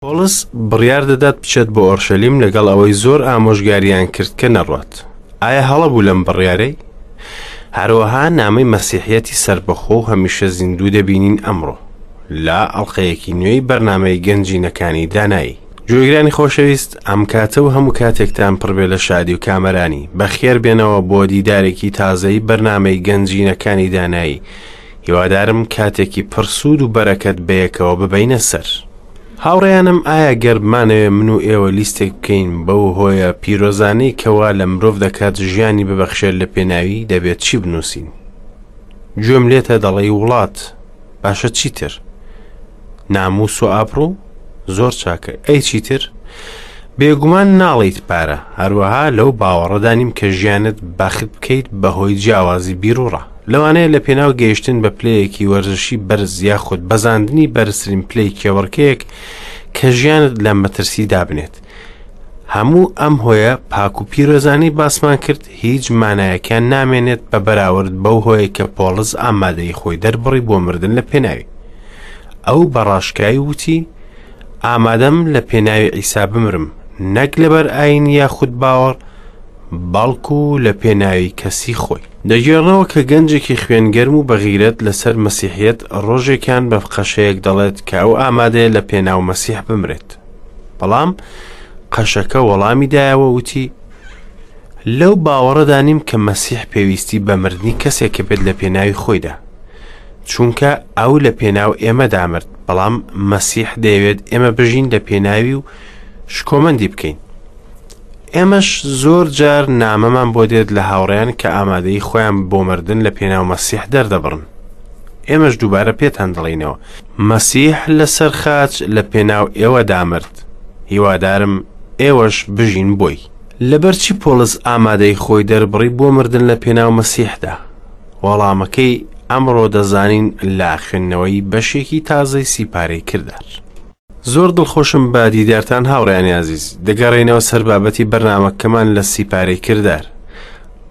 پۆڵس بڕیار دەدات بچێت بۆ ئۆرشەلیم لەگەڵ ئەوەی زۆر ئامۆژگاریان کرد کە نەڕوات. ئایا هەڵە بوو لەم بڕیارەی؟ هەروەها نامەی مەسیحیەتی سەربەخۆ و هەمیشە زیندوو دەبینین ئەمڕۆ لە ئەڵقەیەکی نوێی بەرنامەی گەنجینەکانی دانایی. گوێگرانی خۆشەویست ئەم کاتە و هەموو کاتێکتان پڕبێ لە شادی و کامەرانی بەخێر بێنەوە بۆ دیدارێکی تازەی بەرنامەی گەنجینەکانی دانایی هیوادارم کاتێکی پڕسوود و بەرەکەت بەیەکەوە ببەینە سەر. هاوڕێیانم ئایا گەر بمانەوێ من و ئێوە لیستێک بکەین بەو هۆیە پیرۆزانەی کەوا لە مرۆڤ دەکات ژیانی ببەخشێت لە پێناوی دەبێت چی بنووسین؟ گوێم لێتە دەڵێی وڵات باشە چیتر؟ ناموس و ئابڕوو؟ زۆر چاکە ئەی چیتر؟ بێگومان ناڵیت پارە هەروەها لەو باوەڕەدا نیم کە ژیانت بەخت بکەیت بەهۆی جیاوازی بیروڕا لەوانەیە لە پێناو گەیشتن بە پلەیەکی وەرزشی بەرز یاخود بەزاندنی بەرزترین پلەی کێبڕکێیەک کە ژیانت لە مەترسی دابنێت. هەموو ئەم هۆیە پاک و پیرۆزانەی باسمان کرد هیچ مانایەکیان نامێنێت بە بەراورد بەو هۆیە کە پۆڵس ئامادەی خۆی دەربڕی بۆ مردن لە پێناوی. ئەو بە ڕاشکاوی وتی، ئامادەم لە پێناوی عیسا بمرم، نەک لەبەر ئایین یاخود باوەڕ، بەڵکو لە پێناوی کەسی خۆی. دەگێڕنەوە کە گەنجێکی خوێنگەرم و بەغیرەت لەسەر مەسیحیەت ڕۆژێکیان بە قەشەیەک دەڵێت کە ئەو ئامادەیە لە پێناو مەسیح بمرێت. بەڵام قەشەکە وەڵامی دایەوە وتی لەو باوەڕەدا نیم کە مەسیح پێویستی بە مردنی کەسێکە بێت لە پێناوی خۆیدا. چونکە ئەو لە پێناو ئێمەدا مرد، بەڵام مەسیح دەیەوێت ئێمە بژین لە پێناوی و شکۆمەندی بکەین. ئێمەش زۆر جار نامەمان بۆ دێت لە هاوڕێیان کە ئامادەی خۆیان بۆ مردن لە پێناو مەسیح دەردەبڕن. ئێمەش دووبارە پێتان دەڵێینەوە، مەسیح لەسەر خاچ لە پێناو ئێوەدا مرد، هیوادارم ئێوەش بژین بۆی. لەبەرچی پۆڵس ئامادەی خۆی دەربڕی بۆ مردن لە پێناو مەسیحدا؟ وەڵامەکەی ئەمڕۆ دەزانین لە خوێندنەوەی بەشێکی تازەی سیپارەی کردار. زۆر دڵخۆشم بە دیدارتان هاوڕێیانی ئازیز دەگەڕێینەوە سەر بابەتی بەرنامەکەمان لە سیپارەی کردار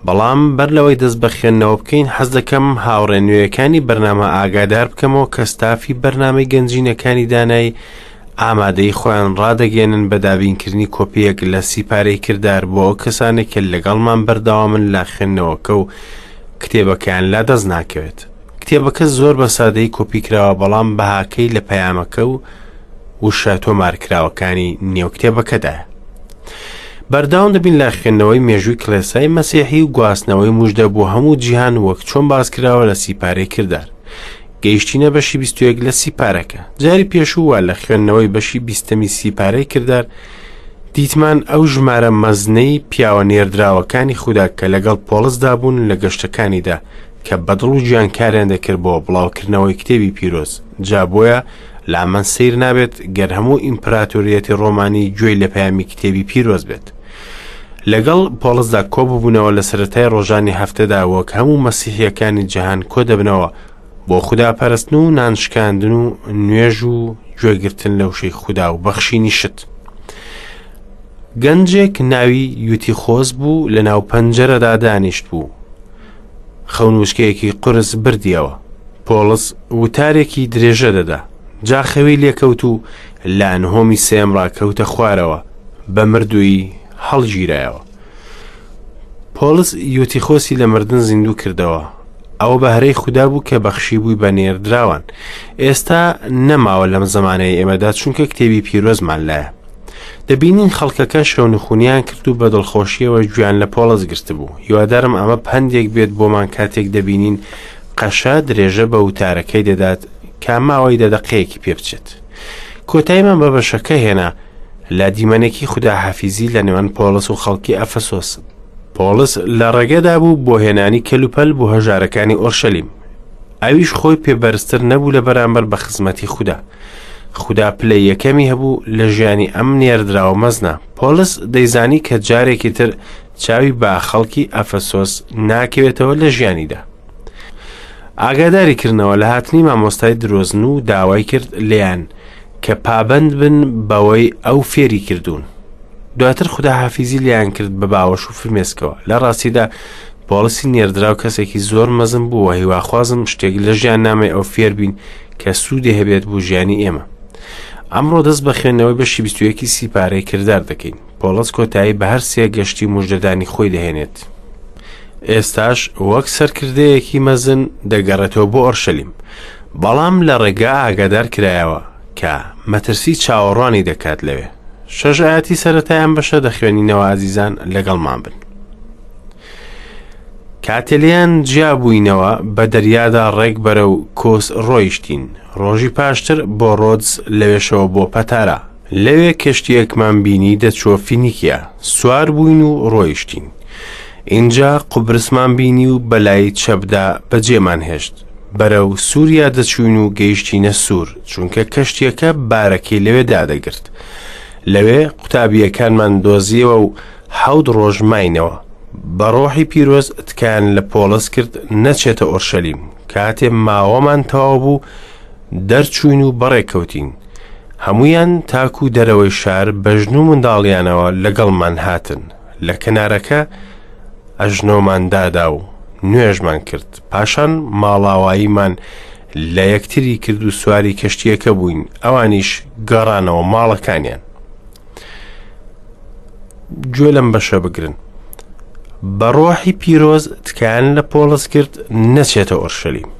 بەڵام بەر لەوەی دەست بە خوێندنەوە بکەین حەز دەکەم هاوڕێ نوێیەکانی بەرنامە ئاگادار بکەمەوە کە ستافی بەرنامەی گەنجینەکانی دانایی ئامادەی خۆیان ڕادەگەێنن بە دابینکردنی کۆپیەک لە سیپارەی کردار بۆ ئەو کەسانێک کە لەگەڵمان بەردەوامن لە خوێندنەوەکە و کتێبەکەیان لا دەست ناکەوێت کتێبەکە زۆر بە سادەیی کۆپی کراوە بەڵام بەهاکەی لە پەیامەکە و وشە تۆمارکراوەکانی نێو کتێبەکەدایە. بەردەوام دەبین لە خوێندنەوەی مێژووی کڵێسای مەسیحی و گواستنەوەی مژدە بۆ هەموو جیهان وەک چۆن باس کراوە لە سیپارەی کردار. گەیشتینە بەشی 21 لە سیپارەکە. جاری پێشوو لە خوێندنەوەی بەشی بیستەمی سیپارەی کردار دیتمان ئەو ژمارە مەزنەی پیاوە نێردراوەکانی خودا کە لەگەڵ پۆڵسدا بوون لە گەشتەکانیدا کە بە دڵ و گیان کاریان دەکرد بۆ بڵاوکردنەوەی کتێبی پیرۆز، جا بۆیە لامان سەیر نابێت گەر هەموو ئیمپراتۆریەتی ڕۆمانی گوێی لە پەیامی کتێبی پیرۆز بێت. لەگەڵ پۆڵسدا کۆببوونەوە لە سەرەتای ڕۆژانی هەفتەدا وەک هەموو مەسیحیەکانی جیهان کۆدەبنەوە بۆ خودا پەرستن و نان شکاندن و نوێژ و گوێگرتن لە وشەی خودا و بەخشینی شت. گەنجێک ناوی یوتیخۆس بوو لە ناو پەنجەرەدا دانیشت بوو. خەونووسکەیەکی قورس بردیەوە. پۆڵس وتارێکی درێژە دەدا. جا خەوی لێکەوت و لە نهۆمی سێیەمڕا کەوتە خوارەوە، بە مردوویی هەڵگیرایەوە. پۆڵس یوتیخۆسی لە مردن زیندوو کردەوە. ئەوە بەهرەی خودا بوو کە بەخشیبووی بە نێردراوان. ئێستا نەماوە لەم زەمانەی ئێمەدا چونکە کتێبی پیرۆزمان لایە. دەبینین خەڵکەکە شەونخونیان کرد و بە دڵخۆشیەوە گوێیان لە پۆڵس گرتبوو. هیوادارم ئەمە پەندێک بێت بۆمان کاتێک دەبینین قەشە درێژە بە وتارەکەی دەدات کە ماوەی دە دەقەیەکی پێ بچێت. کۆتاییمان بە بەشەکە هێنا لە دیمەنێکی خوداحافیزی لە نێوان پۆڵس و خەڵکی ئەفەسۆس. پۆڵس لە ڕێگەدا بوو بۆ هێنانی کەلوپەل بۆ هەژارەکانی ئۆرشەلیم. ئەویش خۆی پێ بەرزتر نەبوو لە بەرامبەر بە خزمەتی خودا. خودا پلەی یەکەمی هەبوو لە ژیانی ئەم نێردراوە مەزنە. پۆڵس دەیزانی کە جارێکی تر چاوی بە خەڵکی ئەفەسۆس ناکەوێتەوە لە ژیانیدا. ئاگاداری کردنەوە لە هاتنی مامۆستای درۆزن و داوای کرد لێیان کە پابەند بن بەوەی ئەو فێری کردوون. دواتر خوداحافیزی لێیان کرد بە باوەش و فرمێسکەوە. لە ڕاستیدا پۆڵسی نێردراو کەسێکی زۆر مەزن بوو و هیواخوازم شتێک لە ژیاننامەی ئەو فێر بین کە سوودی هەبێت بۆ ژیانی ئێمە. ئەمڕۆ دەست بە خوێندنەوەی بەشی 21 سیپارەی کردار دەکەین. پۆڵس کۆتایی بە هەر سێ گەشتی مژدەدانی خۆی دەهێنێت. ئێستاش وەک سەرکردەیەکی مەزن دەگەڕێتەوە بۆ ئۆرشەلیم. بەڵام لە ڕێگا ئاگادار کرایەوە کە مەترسی چاوەڕوانی دەکات لەوێ. شەش ئاەتی سەرەتای ئەم بەشە دەخوێنینەوە ئازیزان لەگەڵمان بن. کاتێ لێیان جیا بووینەوە بە دەریادا ڕێک بەرەو کۆس ڕۆیشتین، ڕۆژی پاشتر بۆ ڕۆدس لەوێشەوە بۆ پەتارا. لەوێ کەشتییەکمان بینی دەچووە فینیکیا، سوار بووین و ڕۆیشتین. ئینجا قوبرسمان بینی و بەلای چەپدا بەجێمان هێشت. بەرەو سووریا دەچووین و گەیشتینە سوور، چونکە کەشتییەکە بارەکەی لەوێ دادەگرت. لەوێ قوتابییەکانمان دۆزییەوە و حەوت ڕۆژ ماینەوە. بە ڕۆحی پیرۆز تکایان لە پۆڵس کرد نەچێتە ئۆرشەلیم. کاتێ ماوەمان تەواو بوو، دەرچووین و بەڕێکەوتین. هەموویان تاکو دەرەوەی شار بە ژن و منداڵیانەوە لەگەڵمان هاتن. لە کەنارەکە ئەژنۆمان دادا و نوێژمان کرد. پاشان ماڵاواییمان لە یەکتری کرد و سواری کەشتییەکە بووین، ئەوانیش گەڕانەوە ماڵەکانیان. گوێ لەم بەشە بگرن. بە ڕۆحی پیرۆز تکایان لە پۆڵس کرد نەچێتە ئۆرشەلیم.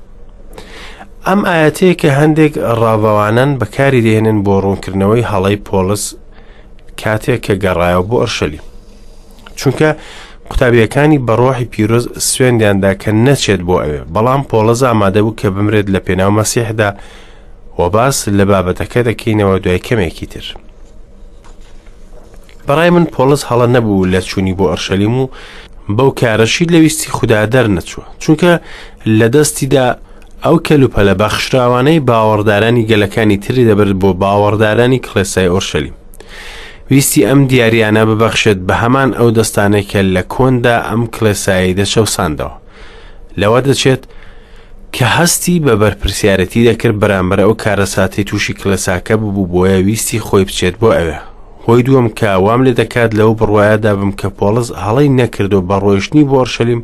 ئەم ئاەتەیە کە هەندێک ڕاڤەوانان بەکاری دێنن بۆ ڕوونکردنەوەی هەڵەی پۆڵس کاتێک کە گەڕایەوە بۆ ئۆرشەلیم. چونکە قوتابیەکانی بە ڕۆحی پیرۆز سوێندیاندا کە نەچێت بۆ ئەوێ، بەڵام پۆڵس ئامادە بوو کە بمرێت لە پێناو مەسیحدا و باس لە بابەتەکە دەکەینەوە دوای کەمێکی تر. بەڕای من پۆڵس هەڵە نەبوو لە چوونی بۆ ئەرشەلیم و بەو کارەشی لە ویستی خودا دەرنەچووە، چونکە لە دەستیدا ئەو کەلوپەلە بەخشراوانەی باوەڕدارانی گەلەکانی تری دەبرد بۆ باوەڕدارانی کڵێسای ئۆرشەلیم. ویستی ئەم دیاریانە ببەخشێت بە هەمان ئەو دەستانەی کە لە کۆندا ئەم کڵێسایەی دەچەوساندەوە. لەوە دەچێت کە هەستی بە بەرپرسیارەتی دەکرد بەرامبەر ئەو کارەساتەی تووشی کڵێساکە ببوو، بۆیە ویستی خۆی بچێت بۆ ئەوێ. هۆی دووەم کە وام لێ دەکات لەو بڕوایەدا بم کە پۆڵس هەڵەی نەکردو بە ڕۆیشتنی بۆ ئۆرشەلیم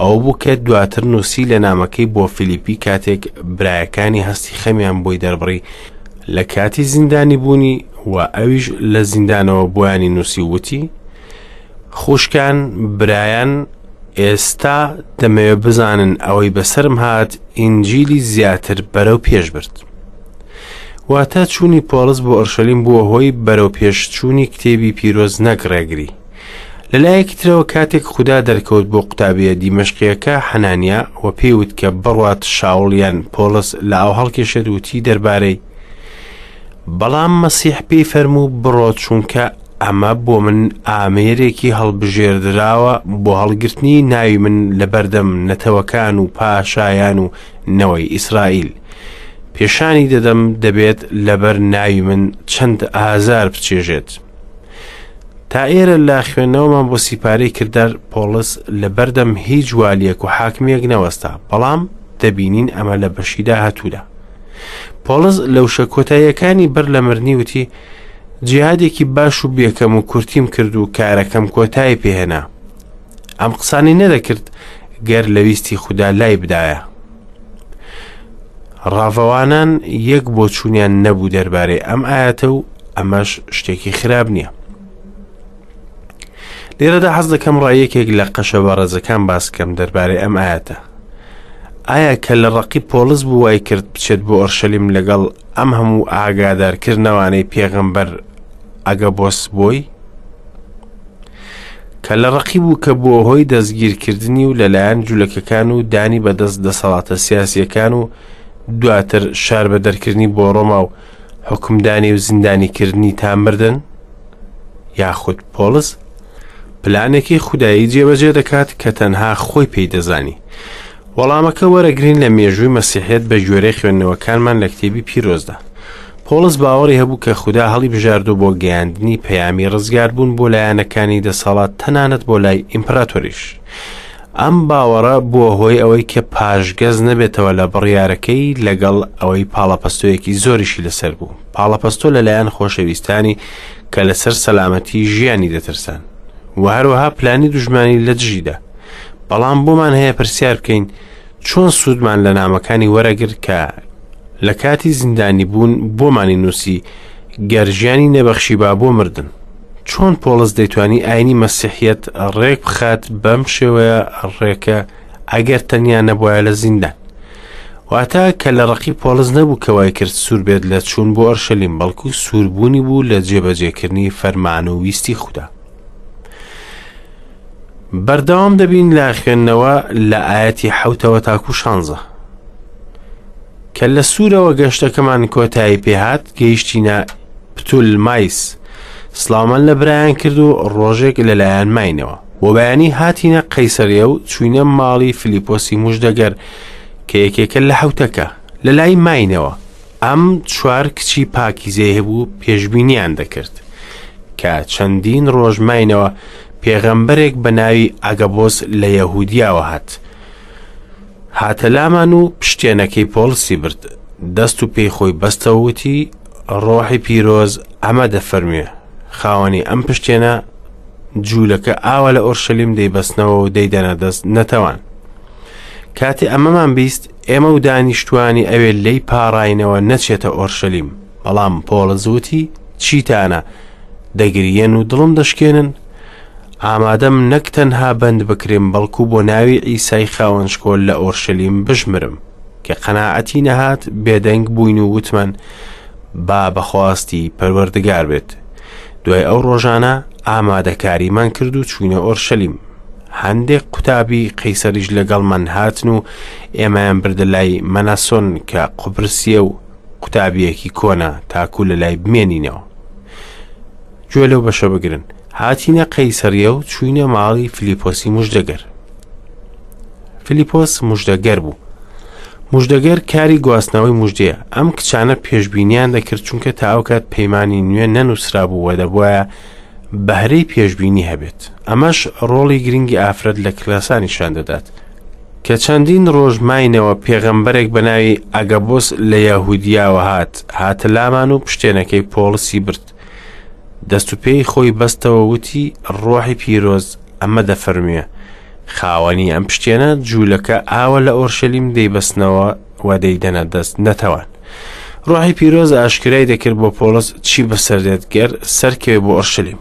ئەوە بوو کە دواتر نووسی لە نامەکەی بۆ فیلیپی کاتێک برایەکانی هەستی خەمیان بۆی دەربڕی لە کاتی زیندانی بوونی و ئەویش لە زیندانەوە بۆیانی نووسی وتی خوشکان برایان ئێستا دەمەوێت بزانن ئەوەی بەسەرم هات ئینجیلی زیاتر بەرەو پێش برد. واتە چوونی پۆڵس بۆ ئۆرشەلیم بووە هۆی بەرەو پێش چوونی کتێبی پیرۆز نەک ڕێگری. لەلایەکی ترەوە کاتێک خودا دەرکەوت بۆ قوتابیە دیمەشقیەکە حەنانیا و پێی وت کە بڕوات شاوڵ یان پۆڵس لە ئاو هەڵکێشێت وتی دەربارەی بەڵام مەسیح پێی فەرموو بڕۆ چونکە ئەمە بۆ من ئامێرێکی هەڵبژێردراوە بۆ هەڵگرتنی ناوی من لە بەردەم نەتەوەکان و پاشایان و نەوەی ئیسرائیل. پێشانی دەدەم دەبێت لەبەر ناوی من چەند ئازار بچێژێت. تا ئێرە لە خوێندنەوەمان بۆ سیپارەی کردار پۆڵس لە بەردەم هیچ والیەک و حاکمیەک نەوەستا، بەڵام دەبینین ئەمە لە بەشی داهاتوودا. پۆڵس لە وشە کۆتاییەکانی بەر لە مردنی وتی جیهادێکی باش و بێکەم و کورتیم کرد و کارەکەم کۆتایی پێهێنا. ئەم قسانی نەدەکرد گەر لە ویستی خودا لای بدایە. ڕاڤەوانان یەک بۆچوونیان نەبوو دەربارەی ئەم ئاەتە و ئەمەش شتێکی خراپ نییە. لێرەدا حەز دەکەم ڕای یەکێک لە قەشە بەڕێزەکان باس کەم دەربارەی ئەم ئاەتە. ئایا کە لە ڕقی پۆڵس بوو وای کرد بچێت بۆ ئۆرشەلیم لەگەڵ ئەم هەموو ئاگادارکردنەوانەی پێغەمبەر ئەگەبۆس بۆی؟ کە لە ڕقی بوو کە بووە هۆی دەستگیرکردنی و لەلایەن جولەکەکان و دانی بەدەست دەسەڵاتە سیاسیەکان و دواتر شار بە دەرکردنی بۆ ڕۆما و حکومدانی و زیندانیکردنی تا مردن؟ یاخود پۆڵس پلانێکی خودایی جێبەجێ دەکات کە تەنها خۆی پێی دەزانی؟ وەڵامەکە وەرەگرین لە مێژووی مەسیحیەت بە گوێرەی خوێندنەوەکانمان لە کتێبی پیرۆزدا. پۆڵس باوەڕی هەبوو کە خودا هەڵی بژاردوو بۆ گەیاندنی پەیامی ڕزگاربوون بۆ لایەنەکانی دەسەڵات تەنانەت بۆ لای ئیمپراتۆریش. ئەم باوەڕە بووە هۆی ئەوەی کە پاشگەز نەبێتەوە لە بڕیارەکەی لەگەڵ ئەوەی پاڵەپەستۆیەکی زۆریشی لەسەر بوو. پاڵەپەستۆ لەلایەن خۆشەویستانی کە لەسەر سەلامەتی ژیانی دەترسان و هەروەها پلانی دوژمانی لە دژیدا. بەڵام بۆمان هەیە پرسیار بکەین چۆن سوودمان لە نامەکانی وەرەگرت کە لە کاتی زیندانی بوون بۆمانی نووسی گەر ژیانی نەبەخشیبا بۆ مردن. چۆن پۆڵس دەیتوانی ئاینی مەسیحیەت ڕێک بخات بەم شێوەیە ڕێکە ئەگەر تەنیا نەبوایە لە زیندان؟ واتە کە لە ڕقی پۆڵس نەبوو کە وای کرد سوور بێت لە چوون بۆ ئۆرشەلیم، بەڵکو سووربوونی بوو لە جێبەجێکردنی فەرمان و ویستی خودا. بەردەوام دەبین لە خوێندنەوە لە ئاەتی حوتەوە تاکو شانزە. کە لە سوورەوە گەشتەکەمان کۆتایی پێهات گەیشتینە پتولمایس سڵاومان لە برایان کرد و ڕۆژێک لەلایەن ماینەوە. بۆ بەیانی هاتینە قەیسەریە و چوینە ماڵی فلیپۆسی مژدەگەر کە یەکێکە لە حوتەکە لە لای ماینەوە. ئەم چوار کچی پاکیزەی هەبوو پێشبینیان دەکرد. کە چەندین ڕۆژ ماینەوە پێغەمبەرێک بە ناوی ئەگەبۆس لە یەهودیاوە هات. هاتە لامان و پشتێنەکەی پۆڵسی برد، دەست و پێی خۆی بەستەوە وتی، ڕۆحی پیرۆز ئەمە دەفەرموێ، خاوەنی ئەم پشتێنە جوولەکە ئاوا لە ئۆرشەلیم دەیبەستنەوە و دەیدەنە دەست نەتەوان. کاتێ ئەمەمان بیست، ئێمە و دانیشتوانی ئەوێ لێی پاڕاینەوە نەچێتە ئۆرشەلیم. بەڵام پۆڵس وتی، چیتانە، دەگریێن و دڵم دەشکێنن؟ ئامادەم نەک تەنها بەند بکرێم بەڵکو بۆ ناوی عیسای خاوەن شکۆ لە ئۆرشەلیم بشمرم. کە قەناعەتی نەهات بێدەنگ بووین و وتمان با بەخواستی پەروەردگار بێت. دوای ئەو ڕۆژانە ئامادەکاریمان کرد و چوینە ئۆرشەلیم. هەندێک قوتابی قەیسەریش لەگەڵمان هاتن و ئێمەیان بردە لای مەناسۆن کە قوبرسیە و قوتابیەکی کۆنە تاکو لە لای بمێنینەوە. گوێ لەو بەشە بگرن. هاتینە قەیسەریە و چووینە ماڵی فلیپۆسی مژدەگەر. فلیپۆس مژدەگەر بوو. مژدەگەر کاری گواستنەوەی مژدەیە. ئەم کچانە پێشبینیان دەکرد چونکە تا ئەو کات پەیمانی نوێ نەنووسرابوو و دەبوایە بەهرەی پێشبینی هەبێت. ئەمەش ڕۆڵی گرنگی ئافرەت لە کلاسا نیشان دەدات. کە چەندین ڕۆژ ماینەوە پێغەمبەرێک بە ناوی ئەگەبۆس لە یەهودیاوە هات، هاتە لامان و پشتێنەکەی پۆڵسی برد. دەست و پێی خۆی بەستەوە وتی ڕۆحی پیرۆز ئەمە دەفەرموێ خاوەنی ئەم پشتێنە جوولەکە ئاوە لە ئۆرشەلیم دەیبەستنەوە و دەیدەنە دەست نەتەوان. ڕۆحی پیرۆز ئاشکرای دەکرد بۆ پۆڵس چی بەسەر دێت گەر سەرکەوێ بۆ ئۆرشەلیم.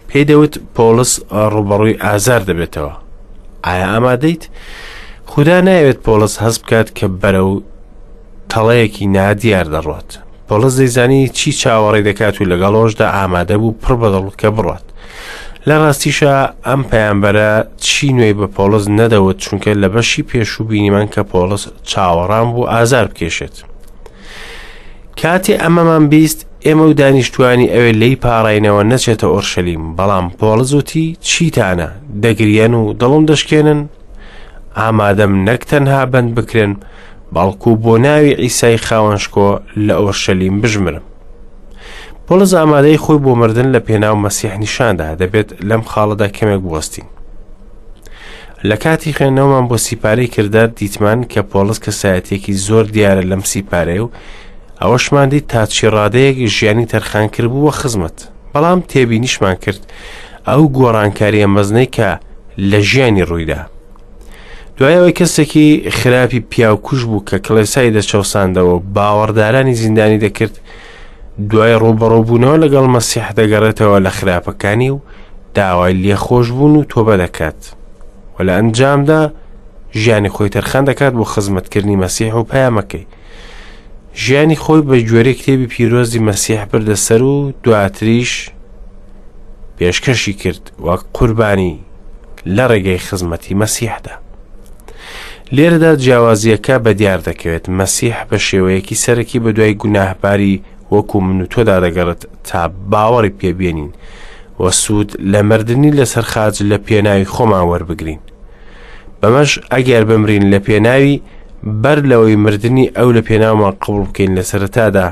پێی دەوت پۆڵس ڕووبەڕووی ئازار دەبێتەوە. ئایا ئامادەیت؟ خودا نایەوێت پۆڵس هەست بکات کە بەرەو تەڵەیەکی نادیار دەڕوات. پۆڵس دەیزانی چی چاوەڕێ دەکات و لەگەڵ ئەوەشدا ئامادە بوو پڕ بەدڵ کە بڕات. لە ڕاستیشا ئەم پەیامبەرە چی نوێی بە پۆڵس نەدەوت چونکە لە بەشی پێشوو بینیمان کە پۆڵس چاوەڕان بوو ئازار بکێشێت. کاتێ ئەمەمان بیست ئێمە و دانیشتوانی ئەوێ لێی پاڕاینەوە نەچێتە ئۆرشەلیم، بەڵام پۆڵس وتی چیتانە دەگریەن و دڵم دەشکێنن؟ ئامادەم نەک تەنها بەند بکرێن بەڵکو بۆ ناوی عیسای خاوەن شکۆ لە ئۆرشەلیم بژمرم. پۆڵس ئامادەی خۆی بۆ مردن لە پێناو مەسیح نیشاندا دەبێت لەم خاڵەدا کەمێک بوەستین. لە کاتی خوێندنەوەمان بۆ سیپارەی کردار دیتمان کە پۆڵس کەسایەتیەکی زۆر دیارە لەم سیپارەیە و ئەوەشمان دیت تا چی ڕادەیەک ژیانی تەرخان کردبوو بە خزمەت بەڵام تێبینیشمان کرد ئەو گۆڕانکاریە مەزنەی کە لە ژیانی ڕوویدا دوای ئەوەی کەسێکی خراپی پیاوکوژ بوو کە کڵێسای دەچەوساندەوە و باوەڕدارانی زیندانی دەکرد دوای ڕووبەڕووبوونەوە لەگەڵ مەسیح دەگەڕێتەوە لە خراپەکانی و داوای لێخۆشبوون و تۆبە دەکات و لە ئەنجامدا ژیانی خۆی تەرخان دەکات بۆ خزمەتکردنی مەسیح و پەیامەکەی ژیانی خۆی بە گوێرەی کتێبی پیرۆزی مەسیح بردە سەر و دواتریش پێشکەشی کرد وەک قوربانی لە ڕێگەی خزمەتی مەسیحدا. لێرەدا جیاوازیەکە بە دیار دەکەوێت مەسیح بە شێوەیەکی سەرەکی بە دوای گوناهباری وەکو من و تۆدا دەگەڕێت تا باوەڕی پێبێنین و سوود لە مردنی لەسەر خاچ لە پێناوی خۆمان وەربگرین. بەمەش ئەگەر بمرین لە پێناوی بەر لەوەی مردنی ئەو لە پێناومان قبوڵ بکەین لە سەرەتادا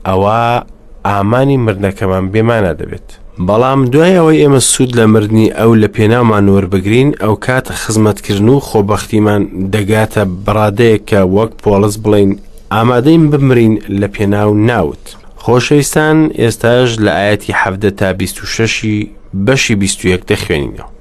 ئەوا ئامانی مردنەکەمان بێمانا دەبێت. بەڵام دوای ئەوەی ئێمە سوود لە مردنی ئەو لە پێناومان وەربگرین، ئەوکات خزمەتکردن و خۆبەختیمان دەگاتە بەڕادەیەک کە وەک پۆڵس بڵێین ئامادەین بمرین لە پێناو ناوت. خۆشەویستان ئێستاش لە ئایەتی 17 تا 26 بەشی 21 دەخوێنینەوە.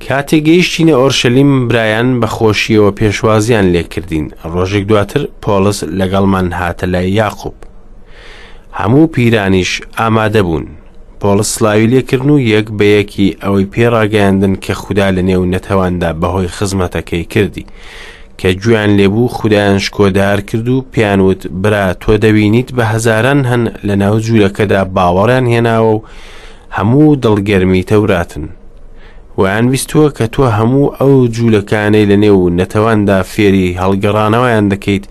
کاتێک گەیشتینە ئۆرشەلیم برایان بە خۆشیەوە پێشوازیان لێکردین ڕۆژێک دواتر پۆڵس لەگەڵمان هاتە لای یاقوب. هەموو پیرانیش ئامادە بوون. پۆڵس سڵاوی لێکردن و یەک بە یەکی ئەوەی پێ ڕاگەیاندن کە خودا لە نێو نەتەواندا بەهۆی خزمەتەکەی کردی. کە گوێیان لێبوو خودایان شکۆدار کرد و پێیان وت برا تۆ دەبینیت بە هەزاران هەن لە ناو جوولەکەدا باوەڕیان هێناوە و هەموو دڵگەرمی تەوراتن. وایان ویستووە کە تۆ هەموو ئەو جوولەکانەی لە نێو نەتەواندا فێری هەڵگەڕانەوەیان دەکەیت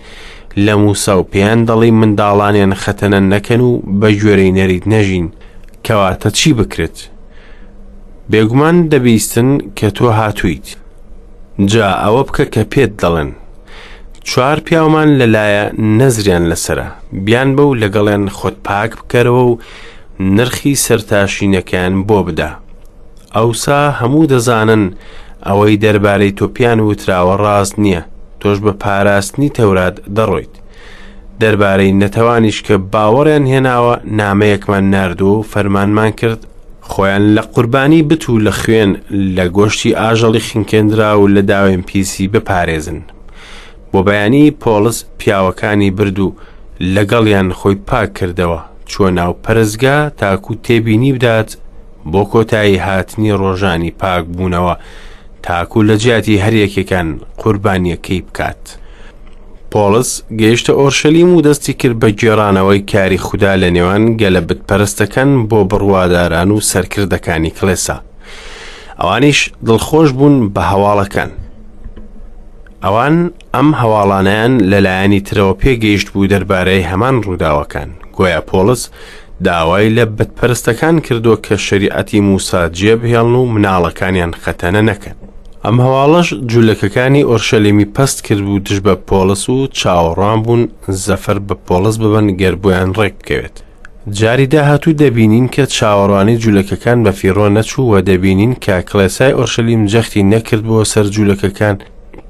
لە موسا و پێیان دەڵێی منداڵانیان خەتەنە نەکەن و بە گوێرەی نەریت نەژین، کەواتە چی بکرێت؟ بێگومان دەبیستن کە تۆ هاتوویت. جا ئەوە بکە کە پێت دەڵێن. چوار پیاومان لەلایە نەزریان لەسەرە، بیانبە و لەگەڵیان خۆت پاک بکەرەوە و نرخی سەرتاشینەکەیان بۆ بدە. ئەوسا هەموو دەزانن ئەوەی دەربارەی تۆ پێیان وتراوە ڕاست نییە، تۆش بە پاراستنی تەورات دەڕۆیت. دەربارەی نەتەوانیش کە باوەڕیان هێناوە نامەیەکمان ناردووە و فەرمانمان کرد خۆیان لە قوربانی بت و لە خوێن، لە گۆشتی ئاژەڵی خنکێندراو و لە داوێن پیسی بپارێزن. بۆ بەیانی پۆڵس پیاوەکانی برد و لەگەڵیان خۆی پاک کردەوە، چووە ناو پەرستگا تاکو تێبینی بدات بۆ کۆتایی هاتنی ڕۆژانی پاکبوونەوە تاکو لە جیاتی هەر یەکێکان قوربانیەکەی بکات. پۆڵس گەیشتە ئۆرشەلیم و دەستی کرد بە گێڕانەوەی کاری خودا لە نێوان گەلە بتپەرستەکان بۆ بڕواداران و سەرکردەکانی کڵێسا. ئەوانیش دڵخۆش بوون بە هەواڵەکان. ئەوان ئەم هەواڵانەیان لەلایەنی ترەوە پێگەیشت بوو دەربارەی هەمان ڕووداوەکان. گۆیا پۆڵس داوای لە بتپەرستەکان کردووە کە شەریعەتی موسا جێبهێڵن و مناڵەکانیان خەتەنە نەکەن. ئەم هەواڵەش جولەکەکانی ئۆرشەلیمی پەست کردبوو دژ بە پۆڵس و چاوەڕوان بوون زەفەر بە پۆڵس ببەن گەر بۆیان ڕێک بکەوێت. جاری داهاتوو دەبینین کە چاوەڕوانی جولەکەکان بە فیڕۆ نەچوو و دەبینین کە کڵێسای ئۆرشەلیم جەختی نەکردبووە سەر جولەکەکان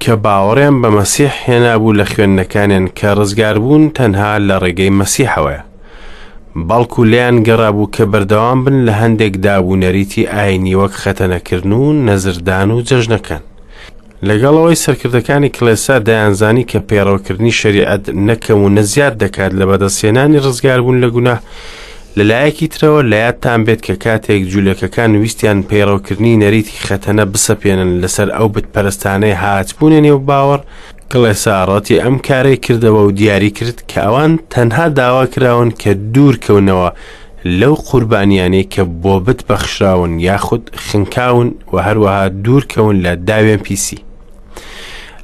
کە باوەڕیان بە مەسیح هێنابوو لە خوێندنەکانیان کە ڕزگاربوون تەنها لە ڕێگەی مەسیحەوەیە. بەڵکو لێیان گەڕابوو کە بەردەوام بن لە هەندێک داب و نەریتی ئاینی وەک خەتەنەکردن و نەزردان و جەژنەکان. لەگەڵ ئەوەی سەرکردەکانی کڵێسا دەیانزانی کە پەیڕەوکردنی شەریعەت نە کەم و نە زیاد دەکات لە بەدەستهێنانی ڕزگاربوون لە گوناه، لە لایەکی ترەوە لە یادتان بێت کە کاتێک جولەکەکان ویستیان پەیڕەوکردنی نەریتی خەتەنە بسەپێنن لەسەر ئەو بتپەرستانەی هاتبوونە نێو باوەڕ، کڵێسا ڕەتی ئەم کارەی کردەوە و دیاری کرد کە ئەوان تەنها داوا کراون کە دوور کەونەوە لەو قوربانیانەی کە بۆ بت بەخشراون یاخود خنکاون و هەروەها دوور کەون لە داوێن پیسی.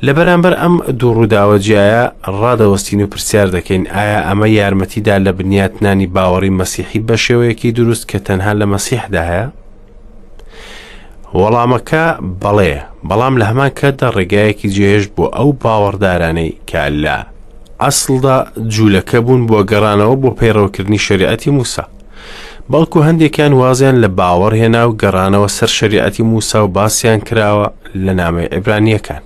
لە بەرامبەر ئەم دوو ڕووداوە جیایە ڕادەوەستین و پرسیار دەکەین ئایا ئەمە یارمەتیدا لە بنیاتنانی باوەڕی مەسیحی بە شێوەیەکی دروست کە تەنها لە مەسیحدا هەیە؟ وەڵامەکە بەڵێیە، بەڵام لە هەمان کاتدا ڕێگایەکی جێهێشت بۆ ئەو باوەڕدارانەی کە لە ئەسڵدا جوولەکە بوون بۆ گەڕانەوە بۆ پەیڕەوکردنی شەریعەتی موسا. بەڵکو هەندێکیان وازیان لە باوەڕ هێنا و گەڕانەوە سەر شەریعەتی موسا و باسیان کراوە لە نامەی عیبرانییەکان.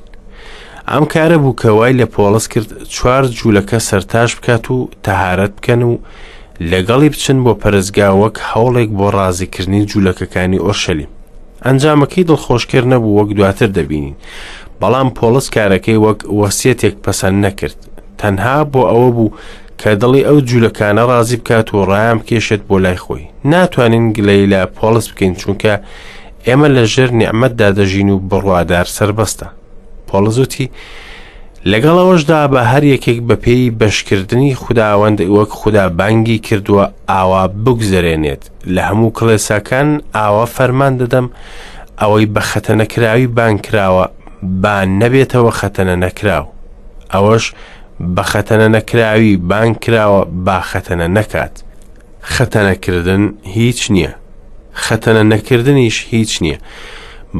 ئەم کارە بوو کە وای لە پۆڵس کرد چوار جوولەکە سەرتاش بکات و تەهارەت بکەن و لەگەڵی بچن بۆ پەرستگا وەک هەوڵێک بۆ ڕازیکردنی جوولەکەکانی ئۆرشەلیم. ئەنجامەکەی دڵخۆشکەر نەبوو وەک دواتر دەبینین، بەڵام پۆڵس کارەکەی وەک وەسیەتێک پەسەند نەکرد، تەنها بۆ ئەوە بوو کە دڵی ئەو جوولەکانە ڕازی بکات و ڕایان بکێشێت بۆ لای خۆی. ناتوانین گلەیی لە پۆڵس بکەین چونکە ئێمە لە ژێر نیعمەتدا دەژین و بڕوادار سەربەستە. پۆڵس وتی، لەگەڵ ئەوەشدا بە هەر یەکێک بەپێی بەشکردنی خوداوەند وەک خودا بانگی کردووە ئاوا بگوزەرێنێت لە هەموو کڵێساکان ئاوا فەرمان دەدەم ئەوەی بە خەتەنەکراوی بانگ کراوە با نەبێتەوە خەتەنە نەکراو ئەوەش بە خەتەنە نەکراوی بانگ کراوە با خەتەنە نەکات خەتەنەکردن هیچ نییە، خەتەنە نەکردنیش هیچ نییە،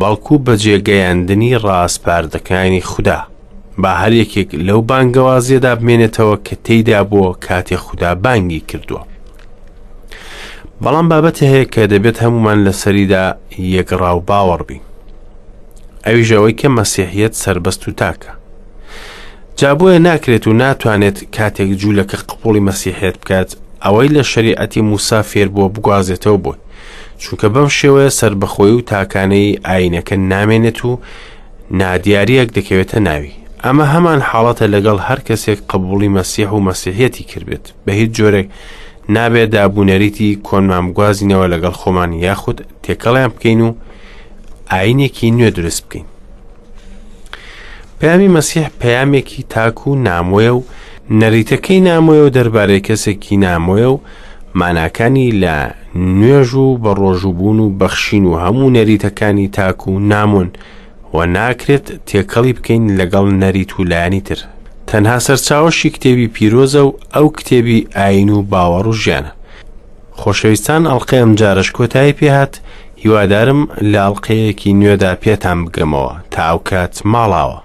بەڵکو بەجێگەیاندنی ڕاسپاردەکانی خودا. با هەر یەکێک لەو بانگەوازیەدا بمێنێتەوە کە تێیدا بووە کاتێ خودا بانگی کردووە. بەڵام بابەتی هەیە کە دەبێت هەمومان لەسەریدا یەکڕا و باوەڕ بین. ئەویش ئەوەی کە مەسیحیەت سەربەست و تاکە. جا بۆیە ناکرێت و ناتوانێت کاتێک جوولەکە قبوڵی مەسیحیەت بکات ئەوەی لە شەریعەتی موسا فێربووە بگوازێتەوە بۆی چونکە بەم شێوەیە سەربەخۆی و تاکانەی ئاینەکە نامێنێت و نادیاریەک دەکەوێتە ناوی ئەمە هەمان حاڵەتە لەگەڵ هەر کەسێک قبوڵی مەسیح و مەسیحیەتی کردبێت بە هیچ جۆرێک نابێ دابونەریتی کۆنمان بگوازینەوە لەگەڵ خۆمان یاخود تێکەڵیان بکەین و ئاینێکی نوێ دروست بکەین. پەیامی مەسیح پەیامێکی تاک و نامۆیە و نەریتەکەی نامۆیە و دەربارەی کەسێکی نامۆیە و ماناکانی لە نوێژ و بە ڕۆژووبوون و بەخشین و هەموو نەریتەکانی تاک و نامۆن و ناکرێت تێکەڵی بکەین لەگەڵ نەریت و لایەنی تر. تەنها سەرچاوەشی کتێبی پیرۆزە و ئەو کتێبی ئایین و باوەڕ و ژیانە. خۆشەویستان ئەڵقەی ئەمجارەش کۆتایی پێهات هیوادارم لە ئەڵقەیەکی نوێدا پێتان بگەمەوە تا ئەوکات ماڵاوە.